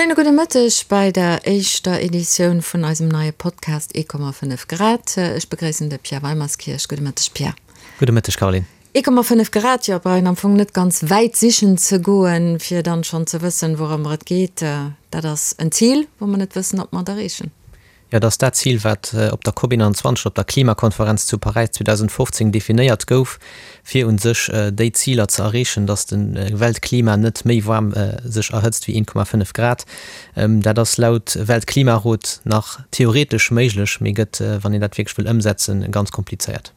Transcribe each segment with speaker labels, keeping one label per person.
Speaker 1: Schéine gudde Mëtteg bei der éischter Editioun vun eisem neie Podcast 1,5 Grad. Ech begréissen de Pierre Weimerskirch. Gudde Mëtteg, Pierre.
Speaker 2: Gudde Mëtteg, Caroline.
Speaker 1: 1,5 Grad, jo, brauch een am Fong net ganz wäit sichen ze goen, fir dann schonn ze wëssen, wourëmmer et geet. Dat ass en Zil, wou mer net wëssen, ob mer et erreechen.
Speaker 2: Jo, et ass dat Zil, wat op der COP 21, op der Klimakonferenz zu Paräis 2015 definéiert gouf, fir u sech déi Ziler ze erreechen, datt de Weltklima net méi waarm sech erhëtzt wéi 1,5 Grad. Dat ass laut Weltklimarot nach theoretesch méiglech, mee gëtt, wann een dat wierklech wëll ëmsetzen, ganz komplizéiert.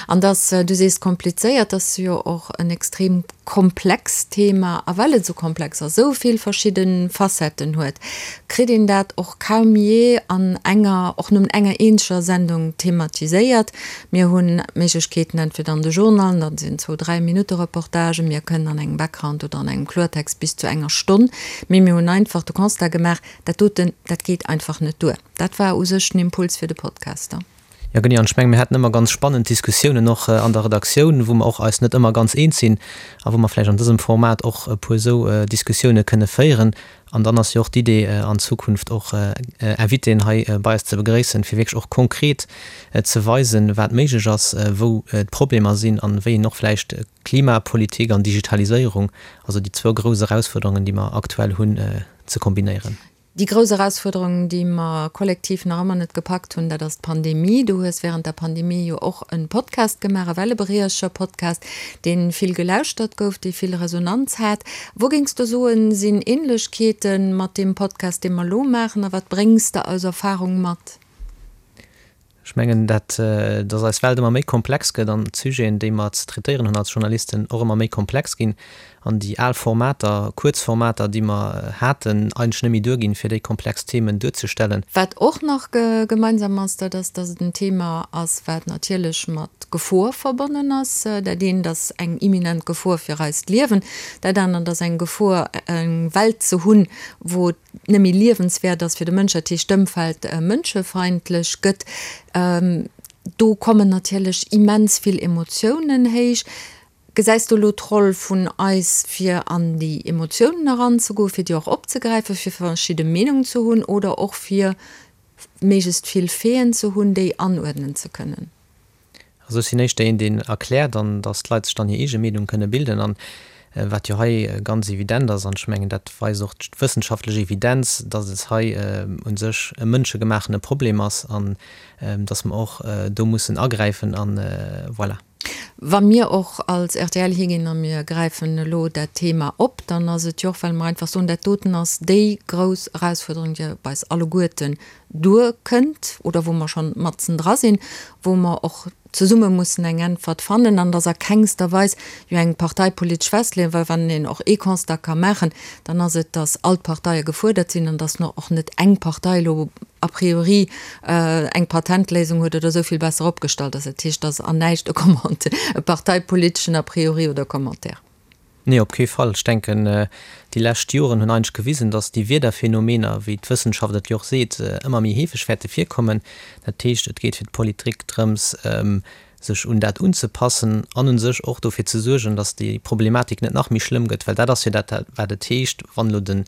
Speaker 1: An dass, du sees komplizéiert, ass jo och en extrem komplext Thema. A well et esou komplex ass, esou vill verschidde Facetten huet, kritt een dat och kaum jee an enger, och nëmmen enger eenzeger Sendung thematiséiert. Mir hunn d'Méiglechkeeten entweder an de Journalen, dat sinn zwou, dräi Minutte Reportagen, mir kënnen an engem Background oder an engem Kloertext bis zu enger Stonn, mee mir hunn einfach de Constat gemaach, dat doten, dat geet einfach net duer. Dat war u sech den Impuls fir de Podcast.
Speaker 2: Jo genee, an ech menge mir haten ëmmer ganz spannend Diskussiounen och an der Redaktioun, wou mer och eis net ëmmer ganz eens sinn a wou mer vläicht an dësem Format och e puer esou Diskussioune kënne féieren. An dann ass jo och d'Idee an Zukunft och Invitéen hei bei eis ze begréissen, fir wierklech och konkret ze weisen, wat méiglech ass, wou d'Problemer sinn an wéi een och vläicht Klimapolitik an Digitaliséierung, also déi zwou grouss Erausfuerderungen, déi mer aktuell hunn, ze kombinéieren.
Speaker 1: Déi grouss Erausfuerderung, déi mer kollektiv nach ëmmer net gepackt hunn, dat ass d'Pandemie. Du hues wärend der Pandemie jo och e Podcast gemaach, e Wellebriecher-Podcast, dee vill gelauschtert gouf, dee vill Resonanz hat. Wou géings du soen, sinn Änlechkeete mat deem Podcast, dee mer elo maachen, a wat bréngs de aus Erfarung mat?
Speaker 2: Ech mengen, dat, dass eis Welt ëmmer méi komplex gëtt an d'Sujeten, déi mer ze traitéieren hunn als Journalisten, och ëmmer méi komplex ginn an déi al Formater, kuerz Formater, déi mer haten, eigentlech net méi duerginn, fir déi komplex Themen duerzestellen.
Speaker 1: Wat och nach gemeinsam ass, dat ass, dass et en Thema ass, wat natierlech mat Gefor verbonnen ass. Dat eent ass eng imminent Gefor fir eist Liewen, dat anert ass eng Gefor, eng Welt ze hunn, wou et net méi liewenswäert ass fir de Mënsch, dat heescht d'Ëmfeld mënschefeindlech gëtt, do kommen natierlech immens vill Emotiounen héich. Gesäis du elo d'Roll vun eis, fir an déi Emotiounen eranzegoen, fir déi och opzegräifen, fir verschidde Meenungen ze hunn oder och fir méiglechst vill Faiten ze hunn, déi anuerdnen ze kënnen?
Speaker 2: Also ech sinn éischter een, deen erkläert an datt d'Leit sech dann hir eege Meenung kënne bilden. An wat jo hei ganz evident ass, an ech mengen dat weist och d'wëssenschaftlech Evidenz, datt et hei u sech e mënschegemachene Problem ass an datt mer och do mussen agräifen an voilà.
Speaker 1: Wa mir och als rtl higinn a mir gräifen elo dat Thema op, dann ass et jo och, well mer einfach soen, dat doten ass déi grouss Erausfuerderung, déi op eis alleguerten duerkënnt oder wou mer schonn matzen dra sinn, wou mer och zesumme mussen eng Äntwert fannen. An et ass a kengster Weis jo eng parteipolitesch Festleeung, well wann een och ee Constat ka maachen, dann ass et, datt all d'Parteie gefuerdert sinn an datt och net eng Partei elo a priori eng Patentléisung huet oder esou vill besser opgestallt ass. Dat heescht, et ass an näischt e Commentaire, e parteipoliteschen a priori oder Commentaire.
Speaker 2: Nee, op kee Fall. Ech denken, déi lescht Joren hunn eigentlech gewisen, datt déi Wiederphänomener, wéi d'Wëssenschaft et jo och seet, ëmmer méi heefeg wäerte virkommen. Dat heescht, et geet fir d'Politik drëms, sech un dat unzepassen an u sech och dofir ze suergen, datt déi Problematik net nach méi schlëmm gëtt, well dat ass jo dat, wat et heescht, wann elo den,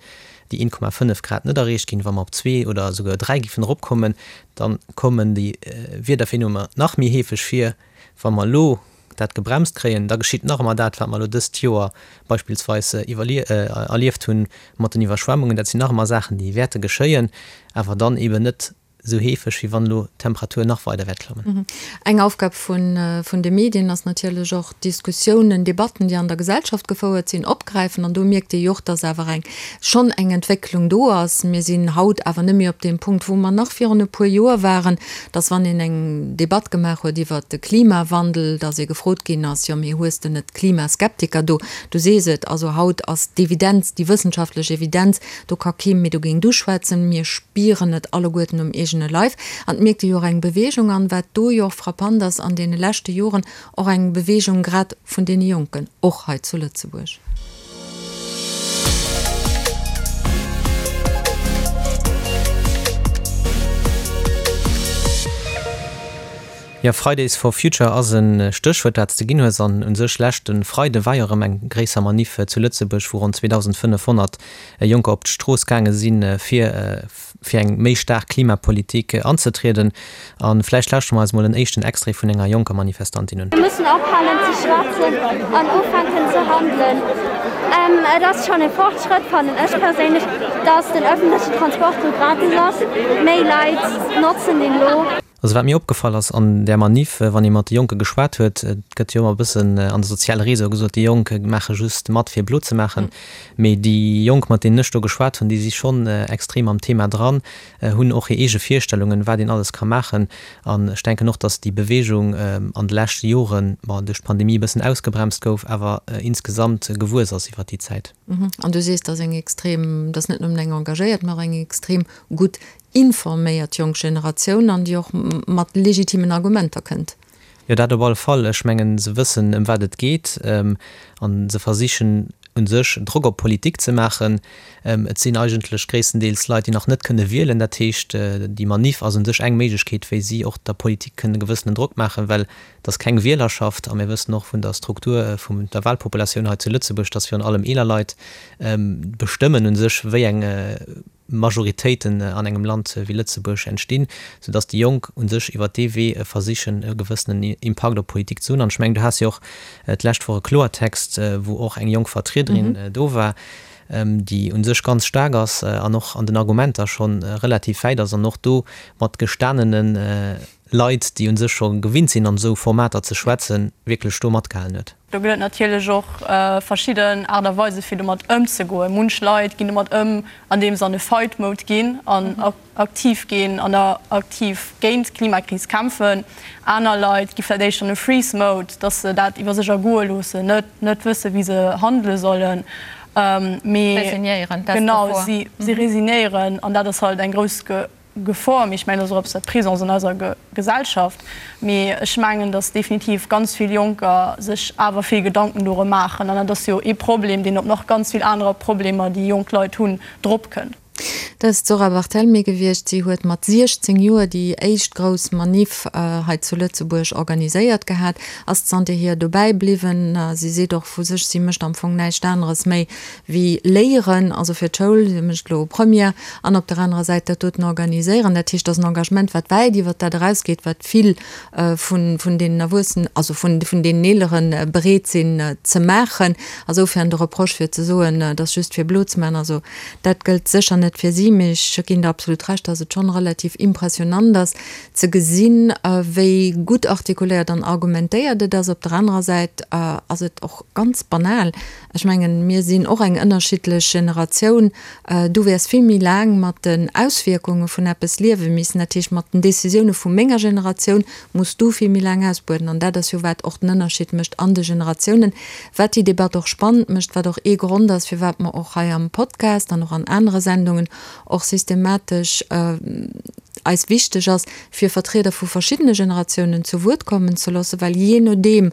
Speaker 2: déi 1,5 Grad net erreecht ginn, wa mer op zwee oder esouguer dräi géifen eropkommen, da kommen déi Wiederphänomener nach méi heefeg vir. Wa mer elo dat gebremst kréien, da geschitt nach ëmmer dat, wat mer elo dëst Joer beispillsweis erlieft hunn mat den Iwwerschwemmungen. Dat sinn nach ëmmer Saachen, déi wäerte geschéien, awer dann eeben net esou heefeg, wéi wann elo d'Temperatur nach weider wäert klammen.
Speaker 1: Eng Aufgab vun de Medien ass natierlech och, Diskussiounen, Debatten, déi an der Gesellschaft gefouert sinn, opgräifen. An do mierkt ee jo och, dass awer eng schonn eng Entwécklung do ass. Mir sinn haut awer net méi op deem Punkt, wou mer nach virun e puer Joer waren, dass wann een eng Debatt gemaach huet iwwert de Klimawandel, dass ee gefrot ginn ass, jo mee hues de net Klimaskeptiker do? Du sees et, also haut ass d'Evidenz, déi wëssenschaftlech Evidenz, do ka kee méi dogéint uschwätzen, mir spieren et alleguerten um eegene Leif. An et mierkt ee jo och eng Beweegung an, wat do jo och frappant ass an deene leschte Joren, och eng Beweegung grad vun deene Jonken, och hei zu Lëtzebuerg.
Speaker 2: Jo, Fridays for Future ass e Stéchwuert, dat s de ginn hues. An u sech leschte Freide war jo erëm eng gréisser Maniff zu Lëtzebuerg, wou ronn 2.500 Jonker op d'Strooss gaange sinn, fir fir eng méi staark Klimapolitik anzetrieden. A vläicht lauschtere mer eis mol en éischten Extrait vun enger jonker Manifestantin un.
Speaker 3: Mir mussen ophalen ze schwätzen an ufänken ze handelen. Et ass schonn e Fortschrëtt, fannen ech perséinlech, dass den ëffentlechen Transport lo gratis ass. Méi Leit notzen deen lo.
Speaker 2: Also wat mir opgefall ass an där Maniff, wann ee mat de Jonke geschwat huet, et gëtt jo ëmmer e bëssen an de soziale Réseaue gesot, déi Jonk maache just mat fir blo ze maachen, mee déi Jonk mat deenen ech do geschwat hunn, déi si schonn extrem am Thema dran, hunn och hir eege Virstellungen, wat een alles ka maachen. An ech denken och, datt déi Beweegung an de leschte Joren, bon, duerch d'Pandemie e bëssen ausgebremst gouf, awer insgesamt gewuess ass iwwer déi Zäit.
Speaker 1: An du sees, datt eng extrem, datt net nëmmen eng engagéiert, mä och eng extrem gutt informéiert jonk Generatioun an déi och mat legitimen Argumenter kënnt.
Speaker 2: Jo, dat op alle Fall. Ech mengen, se wëssen, ëm wat et geet a se versichen u sech Drock op d'Politik ze maachen. Et sinn eigentlech gréisstendeels Leit, déi nach net kënne wielen. Dat heescht, déi Maniff ass u sech eng Méiglechkeet, wéi si och der Politik kënne gewëssenen Drock maachen, well et ass keng Wielerschaft a mir wëssen och vun der Struktur vun der Wahlpopulatioun hei zu Lëtzebuerg, dass virun allem eeler Leit bestëmmen u sech, wéi eng Majoritéiten an engem Land wéi Lëtzebuerg entstinn, soudass déi Jonk u sech iwwer dee Wee versichen e gewëssenen Impakt op d'Politik ze hunn. An ech mengen, du has jo och d'lescht Woch e Kloertext, wou och eng jonk Vertriederin do war, déi u sech ganz staark ass an och an den Argumenter scho relativ wäit ass an och do mat gestanene Leit, déi u sech scho gewinnt sinn an esou Formater ze schwätzen, wierklech do matgehalen huet.
Speaker 4: Do gëtt et natierlech och verschidden Aart a Weise fir domat ëmzegoen. Munch Leit ginn domat ëm, andeem se an e Fight Mode ginn an aktiv ginn an aktiv géint d'Klimakris kämpfen. Aner Leit gi vläicht éischter an e Freeze Mode, dass se dat iwwer sech ergoe loossen, net net wësse wéi se handele sollen, mee genau si resignéieren an dat ass halt eng grouss Gefor, mee ech mengen, dat ass och eppes, wat présent ass an eiser Gesellschaft. Mee ech mengen, datt definitiv ganz vill Jonker sech awer vill Gedanken dorëm maachen. An dat ass jo ee Problem, deen op nach ganz vill anerer Problemer, déi jonk Leit hunn, dropkënnt.
Speaker 1: Dat ass d'Zora Barthelmy gewiescht. Si huet mat 16 Joer déi éischt grouss Maniff hei zu Lëtzebuerg organiséiert gehat, ass zanterhier dobäi bliwwen. Si seet och vu sech, si mécht am Fong näischt aneres méi wéi léieren, also fir d'Schoul, si mécht elo Première, an op der anerer Säit dat doten organiséieren. Dat heescht, dat ass en Engagement, wat wäit iwwert dat erausgeet, wat vill vun, vun deenen Erwuessenen, also vun, vun deenen Eelere bereet sinn ze maachen. Asoufern de Reproche fir ze soen, et ass just fir blo ze maachen, also dat gëllt sécher net fir si, mee ech ginn der absolut Recht, dass et schonn relativ impressionant ass ze gesinn, wéi gutt artikuléiert an argumentéiert et ass. Op der anerer Säit ass et och ganz banal, Ech mengen, mir sinn och eng ënnerschiddlech Generatioun. Du wäers vill méi laang mat den Auswierkunge vun eppes liewe missen. Dat heescht, mat den Decisioune vu menger Generatioun muss du vill méi laang ausbueden. An dat ass jo, wat och den Ënnerschied mécht an de Generatiounen, wat déi Debatt och spannend mécht, wat och ee Grond ass, firwat mer och hei am Podcast an och an anere Sendungen och systematesch eis wichteg ass, fir Vertrieder vu verschiddene Generatiounen zu Wuert kommen ze loossen, well jee nodeem,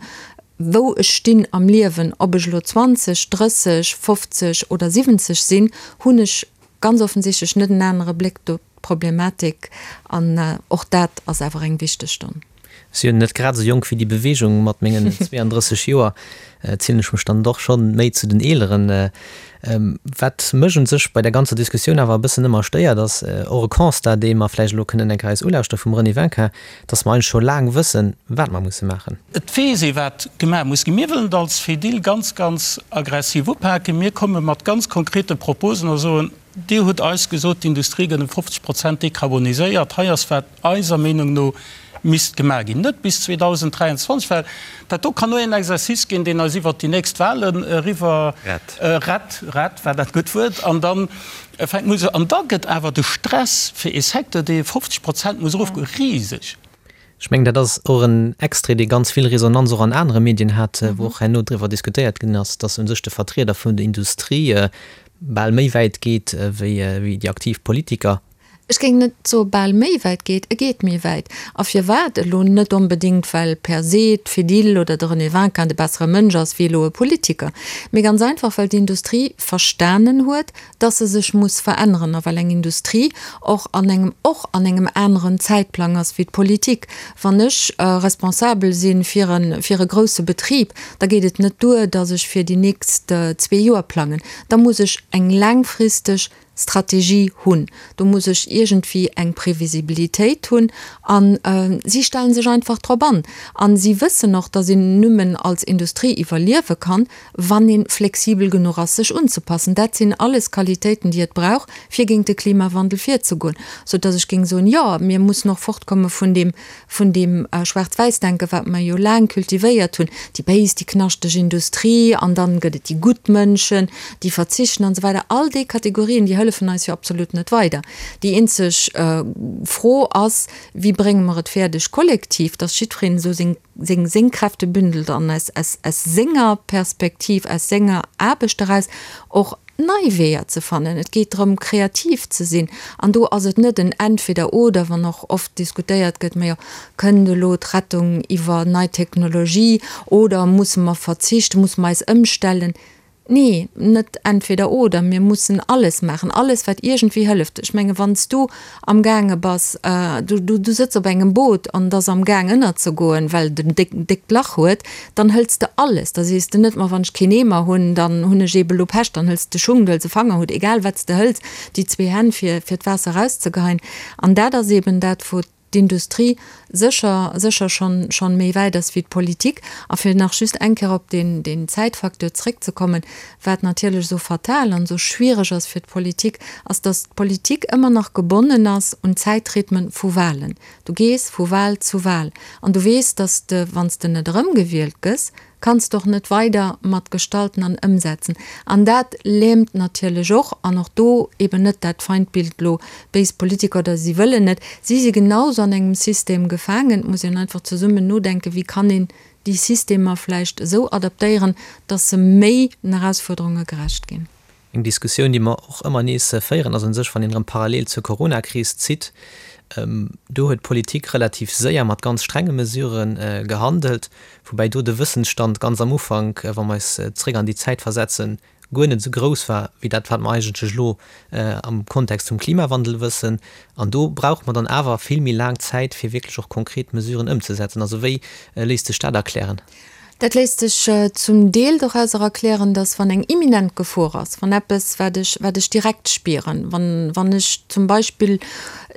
Speaker 1: wou ech stinn am Liewen, ob ech elo 20, 30, 50 oder 70 sinn, hunn ech ganz offensichtlech net en anere Bléck op d'Problematik an och dat ass awer eng wichteg Stonn.
Speaker 2: Ech si jo net grad esou jonk wéi déi Beweegung, mat mengen 32 Joer zielen ech mech dann doch schonn méi zu den Eeleren. Wat mech un sech bei der ganzer Diskussioun awer e bëssen ëmmer stéiert, ass och e Constat, dee mer vläicht elo kënnen eng Kéier eis ulauschtere vum René Winkin, dass mer eigentlech scho laang wëssen, wat mer musse maachen.
Speaker 5: Et weess ee wat gemaach muss ginn. Mir wëllen et als Fedil ganz, ganz aggressiv upaken. Mir komme mat ganz konkrete Proposen a soen, Dir hutt eis gesot, d'Industrie gëtt ëm 50 Prozent dekarboniséiert. Hei ass wat eiser Meenung no misst gemaach ginn. Net bis 2023, well dat do kann nur een Exercice ginn, deen eis iwwert déi nächst Wahlen eriwwer rett, rett war dat gutt Wuert, an dann fänkt muss, an da gëtt awer de Stress fir ee Secteur, dee 50 Prozent muss erofgoen, riseg.
Speaker 2: Ech mengen, dat ass och en Extrait, dee ganz vill Resonanz och an anere Medien hat, wou och herno driwwer diskutéiert ginn ass, dass u sech de Vertrieder vun der Industrie bal méi wäit geet wéi déi aktiv Politiker.
Speaker 1: Ech géing net soe bal méi wäit geet, e geet méi wäit. A firwat? Elo net onbedéngt, well per se d'Fedil oder de René Winkin de bessere Mënsch ass wéi elo e Politiker, mee ganz einfach, well d'Industrie verstanen huet, dass se sech muss veränneren a well eng Industrie och an engem och an engem aneren Zäitplang ass wéi d'Politik. Wann ech responsabel si fir e fir e grousse Betrib, da geet et net duer, dass ech fir déi nächst zwee Joer plangen, da muss ech eng laangfristeg Strategie hunn. Do muss ech iergendwéi eng Previsibilitéit hunn. A si stelle sech einfach drop an. A si wëssen och, datt een nëmmen als Industrie iwwerliewe kann, wann ee flexibel genuch ass, sech unzepassen. Dat sinn alles Qualitéiten, déi et brauch, fir géint de Klimawandel virzegoen. Soudatt ech géing soen, jo, mir mussen och fortkomme vun deem vun deem Schwaarz-Wäiss-Denken, wat mer jo laang cultivéiert hunn, déi béis, déi knaschteg Industrie an dann gëtt et déi gutt Mënschen, déi verzichten an esou weider. All déi Kategorien, déi hëllefen eis jo absolut net weider. Déi eenzeg Fro ass, Wéi brénge mer et fäerdeg kollektiv, dass jiddwereen esou seng, seng, seng Kräfte bündelt an aus, aus, aus senger Perspektiv, aus senger Aarbecht eraus och nei Weeër ze fannen. Et geet drëm, kreativ ze sinn. An do ass et net en Entweder-oder, wann och oft diskutéiert gëtt, majo, kënnt elo d'Rettung iwwer nei Technologie oder musse mer verzichten, musse mer eis ëmstellen? Nee, net Entweder-oder. Mir mussen alles maachen, alles, wat iergendwéi hëlleft. Ech menge wann s du amgaange bass, du, du, du sëtz op engem Boot an et ass amgaang ënnerzegoen, well et en déck, déckt Lach huet, dann hëls de alles. Da sees de net, ma wann ech keen Eemer hunn, dann hunn ech eebe lo Pech, dann hëls de Schung, du hëls e Fangerhutt, egal wat s de hëls, déi zwee Hänn fir, fir d'Waasser erauszegeheien. An dat ass eeben dat, wou d'Industrie sécher, sécher schonn, schonn méi wäit ass wéi d'Politik. A fir nach just eng Kéier op deen, deen Zäitfacteur zréckzekommen, Wat natierlech esou fatal an esou schwiereg ass fir d'Politik, ass, datt d'Politik ëmmer nach gebonnen ass un d'Zäitrhythmen vu Wahlen. Du gees vu Wahl zu Wahl an du weess, datt s de, wann s de net erëmgewielt gëss, kanns de och net weider mat gestalten an ëmsetzen. An dat lähmt natierlech och, an och do eben net dat Feindbild elo béis Politiker oder si wëllen net, si si genauso an engem System gefaangen. Et muss een einfach zesummen nodenken, wéi kann een déi Systemer vläicht esou adaptéieren, dass se méi den Erausfuerderunge gerecht ginn.
Speaker 2: Eng Diskussioun, déi mer och ëmmer nees féieren, ass u sech, wann een erëm parallel zur Coronakris zitt, do huet d'Politik relativ séier mat ganz strenge Mesurë gehandelt, woubäi do de Wëssensstand ganz am Ufank, wa mer eis zréck an déi Zäit versetzen, guer net esou grouss war wéi dat, wat mer eigentlech elo am Kontext vum Klimawandel wëssen. An do brauche mer dann awer vill méi laang Zäit, fir wierklech och konkret Mesuren ëmzesetzen. Also wéi léisst sech dat erklären?
Speaker 1: Dat léisst sech zum Deel dorauser erklären, dass wann eng imminent Gefor ass, wann eppes, wat ech, wat ech direkt spieren, wann, wann ech zum Beispill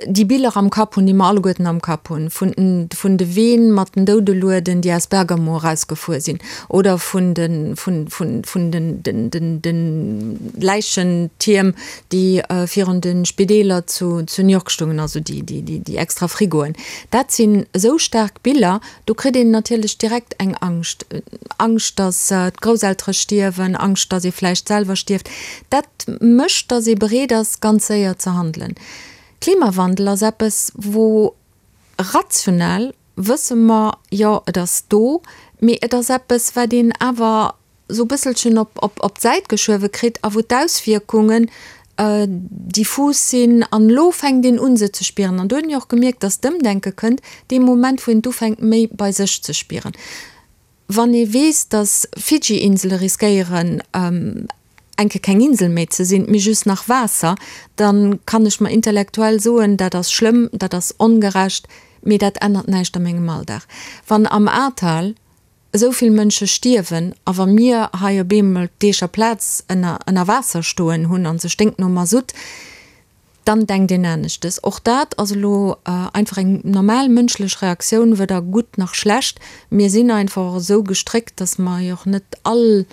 Speaker 1: déi Biller am Kapp hunn, déi mer alleguerten am Kapp hunn, vun den, vun de Ween mat den Doudelueden, déi aus Bergamo erausgefuer sinn, oder vun de, vun, vun, vun den, den, den, den Läichentierm, déi virun de Spideeler zu, zu New York stungen, also déi, déi, déi, déi extra Frigoen. Dat sinn esou staark Biller, do kritt een natierlech direkt eng Angscht. Angscht, datt d'Grousseltere stierwen, Angscht, datt ee vläicht selwer stierft. Dat mécht, datt ee bereet ass, ganz séier ze handelen. Klimawandel ass eppes, wou rational wësse mer, jo, et ass do, mee et ass eppes, wat een awer esou e bësselchen op, op, op d'Säit geschuewe kritt a wou d'Auswierkungen diffus sinn. An elo fänkt een un, se ze spieren. An do hunn ech och gemierkt, dass d'Ëmdenke kënnt dee Moment, wou een et ufänkt, méi bei sech ze spieren. Wann ee weess, datt Fidschi-Insele riskéieren, eng Kéier keng Insel méi ze sinn, mee just nach Waasser, da kann ech mer intellektuell soen, dat ass schlëmm, dat ass ongerecht, mee dat ännert näischt a mengem Alldag. Wann am Ahrtal esou vill Mënsche stierwen a wa mir hei op eemol d'Eecher Plaz ënner ënner Waasser stoen hunn an se sténkt no Masutt, Dann denkt een aneschtes. Och dat ass elo einfach eng normal mënschlech Reaktioun, weder gutt nach schlecht. Mir sinn einfach och esou gestréckt, dass mer jo och net all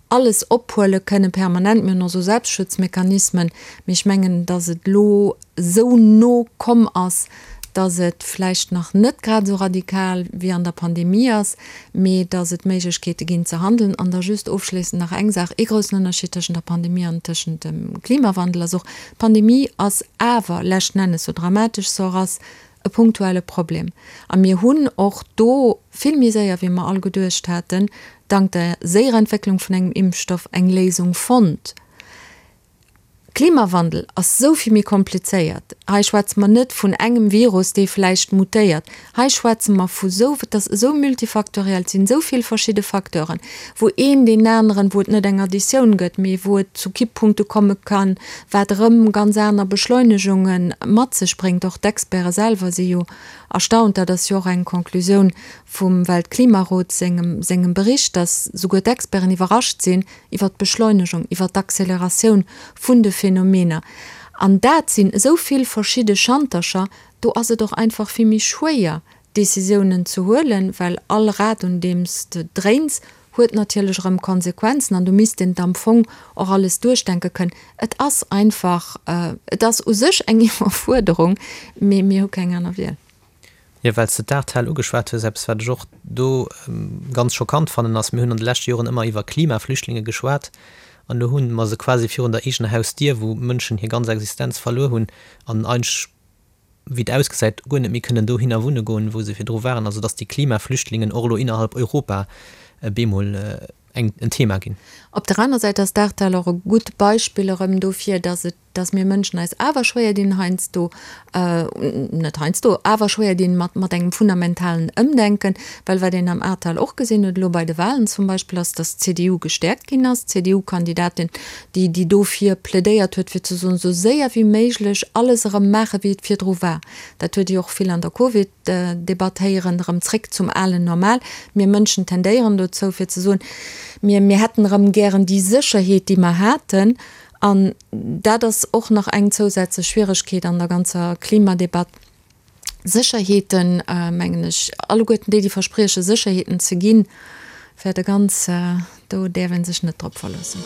Speaker 1: alles ophuele kënne permanent. Mir hunn och esou Selbstschutzmechanismen. Mee ech mengen, dass et elo esou no komm ass, dass et vläicht nach net grad esou radikal wéi an der Pandemie ass, mee dass et Méiglechkeete ginn ze handeln. An da just ofschléissend nach eng Saach, Ee groussen Ënnerschied tëschent der Pandemie an tëschent dem Klimawandel ass och, d'Pandemie ass awer leschten Ennes, sou dramatesch se och ass, e punktuelle Problem. A mir hunn och do vill méi séier, wéi mer all geduecht haten, dank der séierer Entwécklung vun engem Impfstoff eng Léisung fonnt. Klimawandel ass esou vill méi komplizéiert. Hei schwätze mer net vun engem Virus, dee vläicht mutéiert. Hei schwätze mer vu sou, et ass esou multifaktoriell, et sinn esou vill verschidde Facteuren, wou een deen aneren, wou et net eng Additioun gëtt, mee wou et zu Kipppunkte komme kann, wat erëm ganz aner Beschleunegungen mat sech bréngt. Och d'Experte selwer si jo erstaunt, dat ass jo och eng Conclusioun vum Weltklimarot sengem, sengem Bericht, dass souguer d'Experten iwwerrascht sinn, iwwer d'Beschleunegung, iwwer d'Acceleratioun vun de Phänomener. An dat sinn esou vill verschidde Schantercher, do ass et och einfach vill méi schwéier, Décisiounen ze huelen, well all Rad, un deem s de dréins, huet natierlech erëm Konsequenzen an do misst een et am Fong och alles duerchdenke kënnen. Et ass einfach, et ass u sech eng Iwwerfuerderung, mee mir hu keng aner Wiel.
Speaker 2: Jo, well s de d'Ahrtal ugeschwat hues, eppes wat ech och do ganz schockant fannen ass, mir hunn an de leschte Joren ëmmer iwwer Klimaflüchtlinge geschwat an elo hu mer se quasi virun der eegener Hausdier, wou Mënschen hir ganz Existenz verluer hunn an eigentlech, wéi et ausgesäit, guer net méi kënnen dohinner wunne goen, wou se virdru waren. Also datt déi Klimaflüchtlingen och elo innerhalb Europa bemol eng en Thema ginn.
Speaker 1: Op der aner Säit ass d'Ahrtal och e gutt Beispill erëm dofir, datt et dass mir Mënschen eis awer schwéier dinn heiansdo, net heiansdo, awer schwéier dinn mat, mat engem fundamentalen Ëmdenken, well wat een am Ahrtal och gesinn huet, elo bei de Wahlen zum Beispill, ass, dass d'CDU gestäerkt ginn ass, d'CDU-Kandidatin, déi, déi dofir plädéiert huet, fir ze soen, esou séier wéi méiglech alles erëm maache wéi et virdru war. Dat huet déi och vill an der Covid-Debatt héieren, erëm zréck zum alen Normal. Mir Mënschen tendéieren dozou, fir ze soen, mir, mir hätten erëm gären déi Sécherheet, déi mer haten. An dat ass och nach eng zousätzlech Schwieregkeet an der ganzer Klimadebatt. Sécherheeten, mengen ech, alleguerten déi, déi versprieche Sécherheeten ze ginn, wäerte ganz, do däerf ee sech net drop verloossen.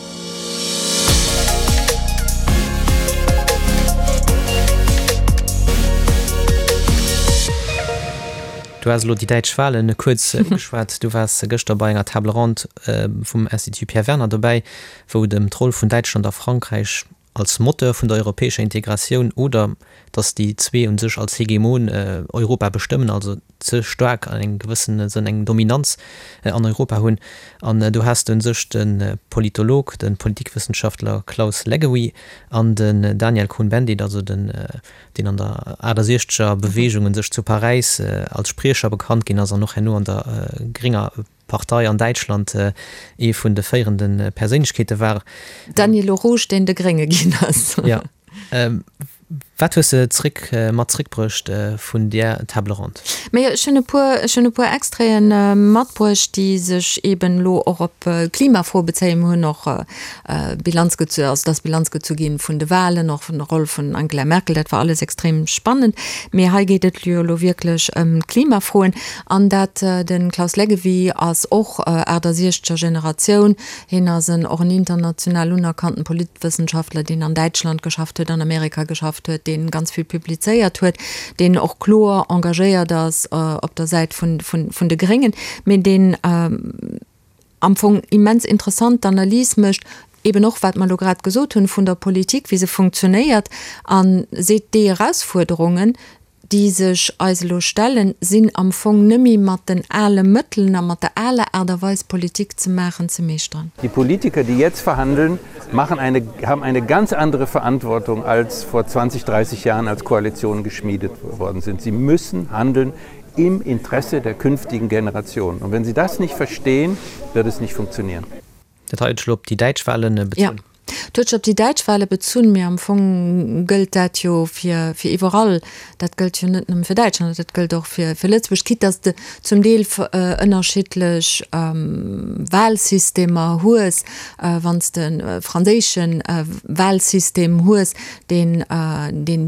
Speaker 2: Du has elo déi däitsch Wahlen kuerz ugeschwat. Du waars gëschter bei enger Table ronde vum Institut Pierre Werner dobäi. wou et ëm d'Roll vun Däitschland a Frankräich als Moteur vun der europäescher Integratioun oder datt déi zwee u sech als Hegemon Europa bestëmmen, also ze staark an engem gewëssene Sënn eng Dominanz an Europa hunn. An do has de u sech de Politolog, de Politikwëssenschaftler Klaus Leggewie an den Daniel Cohn-Bendit, also den, deen an der 68er Beweegung u sech zu Paräis als Spriecher bekannt ginn ass an och herno an der grénger Partei an Däitschland ee vun de féierende Perséinlechkeete war.
Speaker 1: Daniel Rouge, deen de Grénge ginn ass.
Speaker 2: Jo. Wat hues de zréck mat zréckbruecht vun där Table ronde?
Speaker 1: Majo, ech hunn e puer, ech hunn e puer Extraiten matbruecht, déi sech eeben elo och op d'Klimafro bezéien. Mir hunn och Bilanz gezu, also et ass Bilanz gezu ginn vun de Wahlen, och vun der Roll vun Angela Merkel, dat war alles extrem spannend. Mee hei geet et jo elo wierklech ëm d'Klimafroen. An dat, de Klaus Leggewie ass och 68er Generatioun, hien ass en och en international unerkannten Politwëssenschaftler, deen an Däitschland geschafft huet, an Amerika geschafft huet, dee ganz vill publizéiert huet, deen och kloer engagéiert ass op der Säit vun, vun, vun de Gréngen, mee deen am Fong immens interessant d'Analys mécht, eben och wat mer elo grad gesot hunn, vun der Politik, wéi se funktionéiert, a seet, déi Erausfuerderungen, déi sech eis elo stellen, sinn am Fong nëmme mat den ale Mëttelen a mat der aler Aart a Weis Politik ze maachen, ze meeschteren.
Speaker 6: Die Politiker, die jetzt verhandeln, machen eine, haben eine ganz andere Verantwortung als vor 20, 30 Jahren, als Koalitionen geschmiedet worden sind. Sie müssen handeln im Interesse der künftigen Generationen. Und wenn sie das nicht verstehen, wird es nicht funktionieren.
Speaker 2: Dat hei huet sech elo op déi däitsch Wahlen
Speaker 1: bezunn. Jo, dat huet sech op déi däitsch Wahle bezunn, mee am Fong gëllt dat jo fir iwwerall. Dat gëllt jo net nëmme fir Däitschland, dat gëllt och fir Lëtzebuerg, quitte dass de zum Deel ënnerschiddlech Wahlsystemer hues. Wann s de e franséische Wahlsystem hues, deen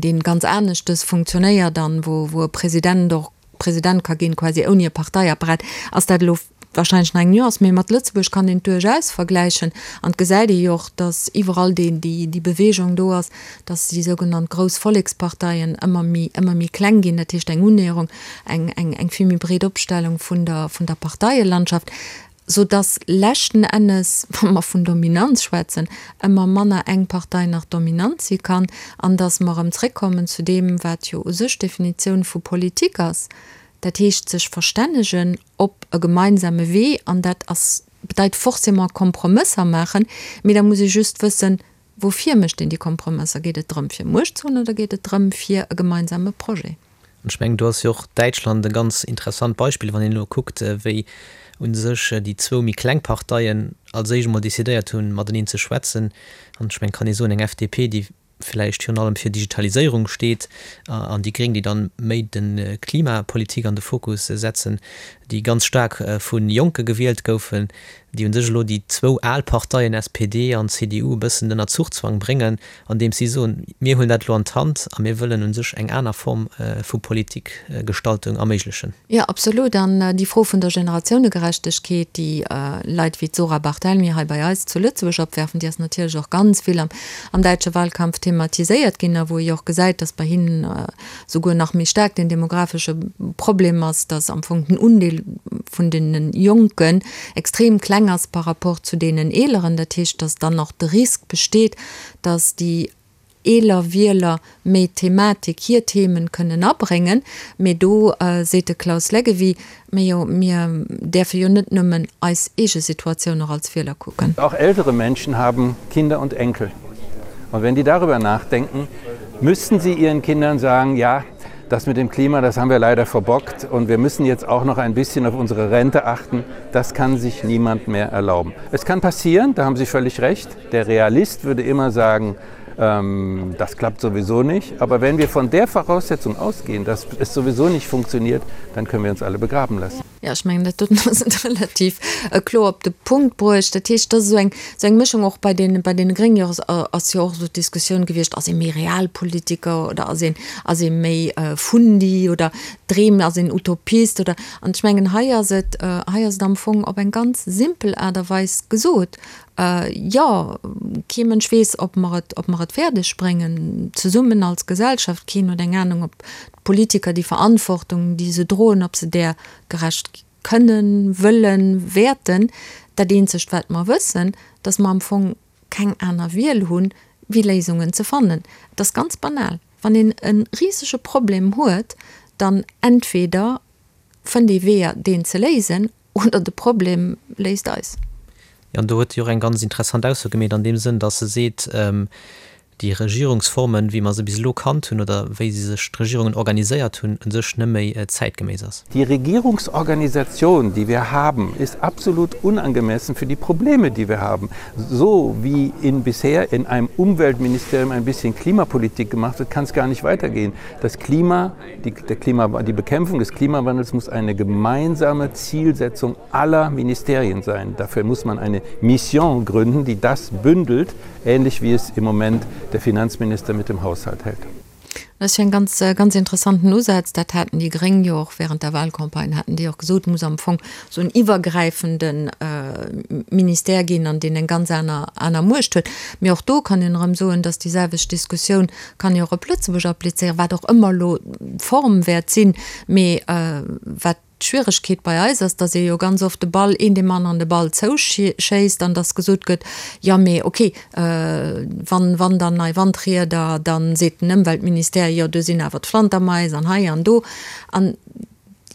Speaker 1: deen ganz aneschtes funktionéiert an wou e President och President ka ginn, quasi ouni e Parteiapparat, ass dat elo wahrscheinlech nach eng Nuance, mee mat Lëtzebuerg kann een et duerchaus vergläichen. An et gesäit ee jo och, datt iwwerall déi, déi Bewegung do ass, datt déi sougenannt grouss Volleksparteien ëmmer méi, ëmmer méi kleng ginn, dat heescht eng Unnäherung, eng, eng, eng vill méi breet Opstellung vun der, vun der Parteielandschaft, sou datt leschten Ennes, wa mer vun Dominanz schwätzen, ëmmer manner eng Partei nach dominant si kann an datt mer erëm zréckkommen zu deem, wat jo u sech d'Definitioun vu Politik ass, dat heescht sech verstännegen op e gemeinsame Wee an dat ass, bedeit forcément Kompromësser maachen, mee da muss ee just wëssen. Woufir mécht een déi Kompromësser? Geet et drëm, fir Muecht ze hunn oder geet et drëm, fir e gemeinsame Projet?
Speaker 2: An ech mengen, do ass jo och Däitschland e ganz interessant Beispill, wann een elo kuckt, wéi u sech déi zwou méi kleng Parteien als éischt emol decidéiert hunn, mateneen ze schwätzen. An ech mengen, et kann ee soen, eng FDP, déi vläicht virun allem fir Digitaliséierung steet, an déi Gréng, déi dann méi de Klimapolitik an de Fokus setzen, déi ganz staark vu Jonke gewielt goufen, déi u sech elo déi zwou al Parteien SPD an CDU e bëssen ënner Zuchzwang bréngen, andeems si soen, mir huelen dat elo an d'Hand a mir wëllen u sech eng aner Form vu Politikgestaltung erméiglechen.
Speaker 1: Jo, absolut. An déi Fro vun der Generatiounegerechtegkeet, déi Leit wéi d'Zora Barthelmy hei bei eis zu Lëtzebuerg opwerfen, déi ass natierlech och ganz vill am am däitsche Wahlkampf thematiséiert ginn a wou ee jo och gesäit, datt bei hinnen souguer nach méi staark den demographesche Problem ass, datt am Fong den Undeel vun deene Jonken extrem kleng ass par rapport zu deenen Eeleren. Dat heescht, datt dann och de Risk besteet, datt déi eeler Wieler méi d'Thematik, hir Themen kënnen abréngen. Mee do seet de Klaus Leggewie, Mee jo, mir däerfe jo net nëmmen eis eege Situatioun och als Wieler kucken.
Speaker 6: Auch ältere Menschen haben Kinder und Enkel. Und wenn die darüber nachdenken, müssten sie ihren Kindern sagen, ja, das mit dem Klima, das haben wir leider verbockt und wir müssen jetzt auch noch ein bisschen auf unsere Rente achten. Das kann sich niemand mehr erlauben. Es kann passieren, da haben Sie völlig recht. Der Realist würde immer sagen, ähm, das klappt sowieso nicht. Aber wenn wir von der Voraussetzung ausgehen, dass es sowieso nicht funktioniert, dann können wir uns alle begraben lassen.
Speaker 1: Ja, ech mengen, dat doten ass et relativ kloer op de Punkt bruecht. Dat heescht, dat ass esou eng, esou eng Mëschung. Och bei den, bei deene Gréngen jo ass jo och esou d'Diskussioun gewiescht, ass ee méi Realpolitiker oder ass een, ass ee méi Fundi oder dreemt, ass een Utopist oder. An ech mengen, hei ass et, hei ass et am Fong op eng ganz simpel Aart a Weis gesot, Jo, kee Mënsch weess, ob mer et, ob mer et fäerdeg bréngen, zesummen als Gesellschaft. Keen huet eng Anung, ob d'Politiker déi Verantwortung, déi se droen, ob se där gerecht kënnen, wëllen, wäerten. Dat eenzegt, wat mer wëssen, dass mer am Fong keng aner Wiel hunn, wéi Léisungen ze fannen. Et ass ganz banal, Wann een e risege Problem huet, dann entweder fënnt ee Weeër, deen ze léisen, Oder de Problem léist eis.
Speaker 2: Jo, an do huet si och eng ganz interessant Ausso gemeet an deem Sënn, datt se seet, déi Regierungsformen, wéi mer se bis elo kannt hunn oder wéi se sech d'Regierungen organiséiert hunn, u sech net méi zäitgeméiss ass.
Speaker 6: Die Regierungsorganisation, die wir haben, ist absolut unangemessen für die Probleme, die wir haben. So wie in bisher in einem Umweltministerium ein bisschen Klimapolitik gemacht wird, kann es gar nicht weitergehen. Das Klima Die, der Klima, die Bekämpfung des Klimawandels muss eine gemeinsame Zielsetzung aller Ministerien sein. Dafür muss man eine Mission gründen, die das bündelt, ähnlich wie es im Moment der Finanzminister mit dem Haushalt hält.
Speaker 1: Dat ass jo en ganz, ganz interessanten Usaz. Dat haten déi Gréng jo och während der Wahlcampagne, haten déi och gesot, et muss am Fong esou en iwwergräifende Ministère ginn, an deen eng ganz aner, aner Muecht huet. Mee och do kann een erëm soen, dass déi selwecht Diskussioun kann ee och op Lëtzebuerg applizéieren, wat och ëmmer elo d'Form wäert sinn. Mee wat d'Schwieregkeet bei eis ass, datt ee jo ganz oft de Ball, een deem aneren de Ball zouschéisst an datt gesot gëtt, jo mee okay, wann, wann dann nei Wandrieder, da seet den Ëmweltministère, jo do sinn awer d'Flantermais an hei an do. An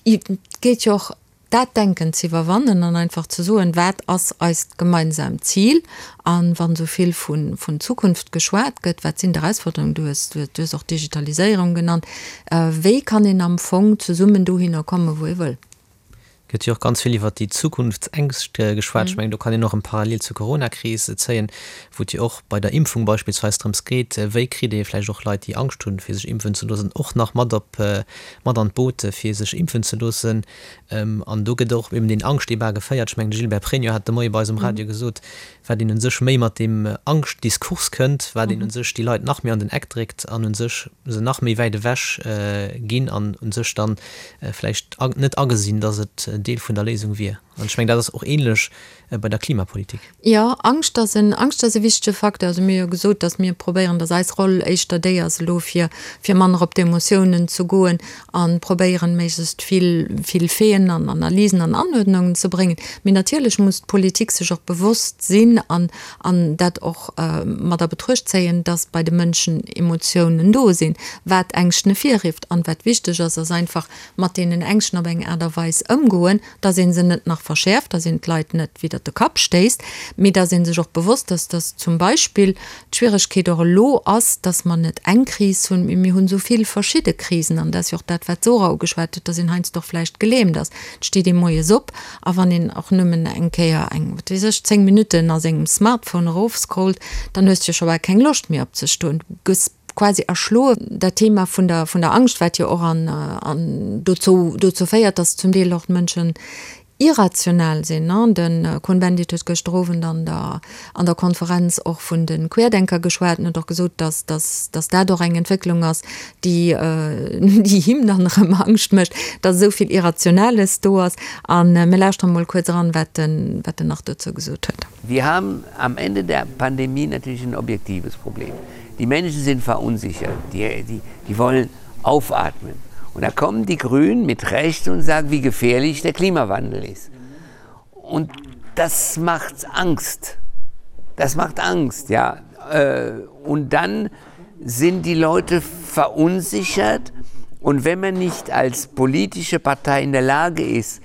Speaker 1: et geet jo och Dat Denken ze iwwerwannen an einfach ze soen, wat ass eist gemeinsaamt Zil? A wann esou vill vun Zukunft geschwat gëtt, wat sinn d'Erausforderungen? Du hues, du hues och d'Digitaliséierung genannt. Wéi kann een am Fong zesummen dohinner kommen, wou ee wëll?
Speaker 2: Gëtt jo och ganz vill iwwert déi Zukunftsängscht geschwat. Ech mengen, do kann een och eng Parallel zur Coronakris zéien, wou et jo och bei der Impfung beispillsweis drëms geet, wéi kritt ee vläicht och Leit, déi Angscht hunn, fir sech impfen ze loossen, och nach mat op, mat an d'Boot, fir sech impfen ze loossen. An do gëtt och eben deen Angschtdebat geféiert. Ech mengen, de Gilbert Pregno hat de Moie bei eis um Radio gesot, wat een u sech méi mat deem Angschtdiskurs kënnt, wat een u sech déi Leit nach méi an den Eck dréckt an u sech se nach méi wäit ewech ginn an u sech dann vläicht net agesinn, datt et Deel vun der Léisung wier. An ech mengen, dat ass och ähnlech bei der Klimapolitik.
Speaker 1: Jo, Angscht ass en, Angscht ass e wichtege Facteur. Also mir hu jo gesot, datt mir probéieren, datt eis Roll éischter déi ass elo fir, fir manner op d'Emotiounen ze goen a probéieren, méiglechst vill, vill Faiten an Analysen an Anuerdnungen ze bréngen. Mee natierlech muss d'Politik sech och bewosst sinn an, an dat och mat a Betruecht zéien, datt bei de Mënschen Emotiounen do sinn, wat Ängschten ervirrifft. An wat wichteg ass, ass einfach mat deenen Ängschten op eng Aart a Weis ëmgoen, datt ee se net nach. verschäerft, dass een d'Leit net widder de Kapp stéisst, mee dass ee sech och bewosst ass, dass zum Beispill d'Schwieregkeet och elo ass, dass mer net eng Kris hunn, mee mir hunn esou vill verschidde Krisen. An dat ass jo och dat, wat d'Zora ugeschwat huet, dass een heiansdo och vläicht gelähmt ass. Et steet ee moies op a wann een och nëmmen eng Kéier eng, wat weess ech, 10 Minutten a sengem Smartphone erofscrollt, dann hues de jo scho bal keng Loscht méi opzestoen. Du gëss quasi erschloe. Dat Thema vun der, vun der Angscht, wat jo och an, an dozou, dozou féiert, dass zum Deel och d'Mënschen irrational sinn. De Cohn-Bendit huet gëschter Owend an der, an der Konferenz och vun de Querdenker geschwat an huet och gesot, dass, dass, dass dat och eng Entwécklung ass, déi, déi him dann erëm Angscht mécht, dass esou vill Irrationales do ass. A mir lauschteren emol kuerz eran, wat en, wat en nach dozou gesot huet.
Speaker 7: Wir haben am Ende der Pandemie natürlich ein objektives Problem. Die Menschen sind verunsichert, die, die, die wollen aufatmen. Und da kommen die Grünen mit Recht und sagen, wie gefährlich der Klimawandel ist. Und das macht Angst. Das macht Angst, ja. Äh, und dann sind die Leute verunsichert. Und wenn man nicht als politische Partei in der Lage ist,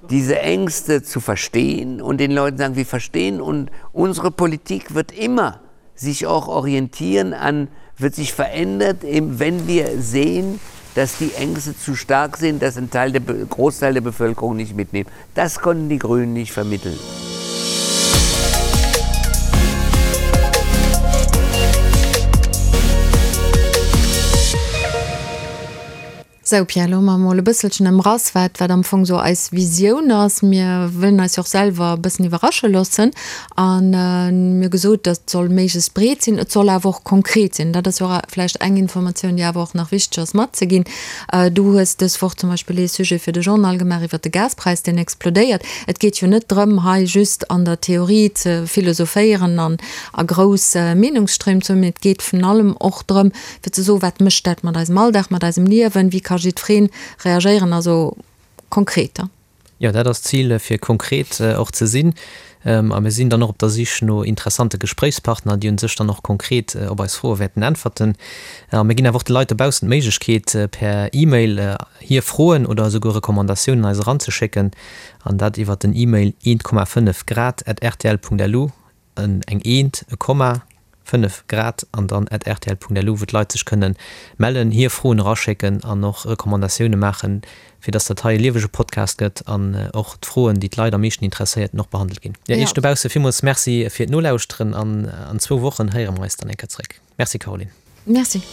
Speaker 7: diese Ängste zu verstehen und den Leuten sagen, wir verstehen und unsere Politik wird immer sich auch orientieren an, wird sich verändert, eben wenn wir sehen, dass die Ängste zu stark sind, dass ein Teil der Großteil der Bevölkerung nicht mitnimmt. Das konnten die Grünen nicht vermitteln.
Speaker 1: Sou, Pierre, elo hu mer emol e bësselchen ëmrass, wat, wat am Fong esou eis Visioun ass. Mir wëllen eis jo och selwer e bëssen iwwerrasche loossen. An mir hu gesot, dat soll méiglechst breet sinn, et soll awer och konkret sinn. Dat ass jo och vläicht eng Informatioun, déi awer och nach wichteg ass matzeginn. Du hues dës Woch zum Beispill ee Sujet fir de Journal gemaach iwwert de Gaspräis, deen explodéiert. Et geet jo net drëm, hei just an der Theorie ze philosophéieren an a grouss Meenungsstréim ze hunn, mee et geet vun allem och drëm, fir ze soen, wat mécht dat mat eisem Alldag, mat eisem Liewen, wéi ka jiddweree reagéieren, also konkret.
Speaker 2: Jo, dat ass d'Zil, fir konkret och ze sinn. A mir sinn dann och op der Sich no interessante Gespréichspartner, déi un sech dann och konkret op eis Froe wäerten äntwerten. A mir ginn awer och de Leit dobaussen d'Méiglechkeet, per E-Mail hir Froen oder esouguer Recommandatiounen eis eranzeschécken, an dat iwwer den E-Mail 1,5 grad at rtl.lu. en, eng Eent, e Komma, 5 Grad an dann at rtl.lu, wou d'Leit sech kënne mellen, hir Froen eraschécken an och Recommandatioune maachen, fir dass dat hei e liewege Podcast gëtt an och d'Froen, déi d'Leit am meeschten interesséierten, och behandelt ginn. Jo, Iech dobausse villmools Merci fir d'Nolauschteren an an zwou Wochen héiere mer eis dann eng Kéier zeréck. Merci Caroline.
Speaker 1: Merci.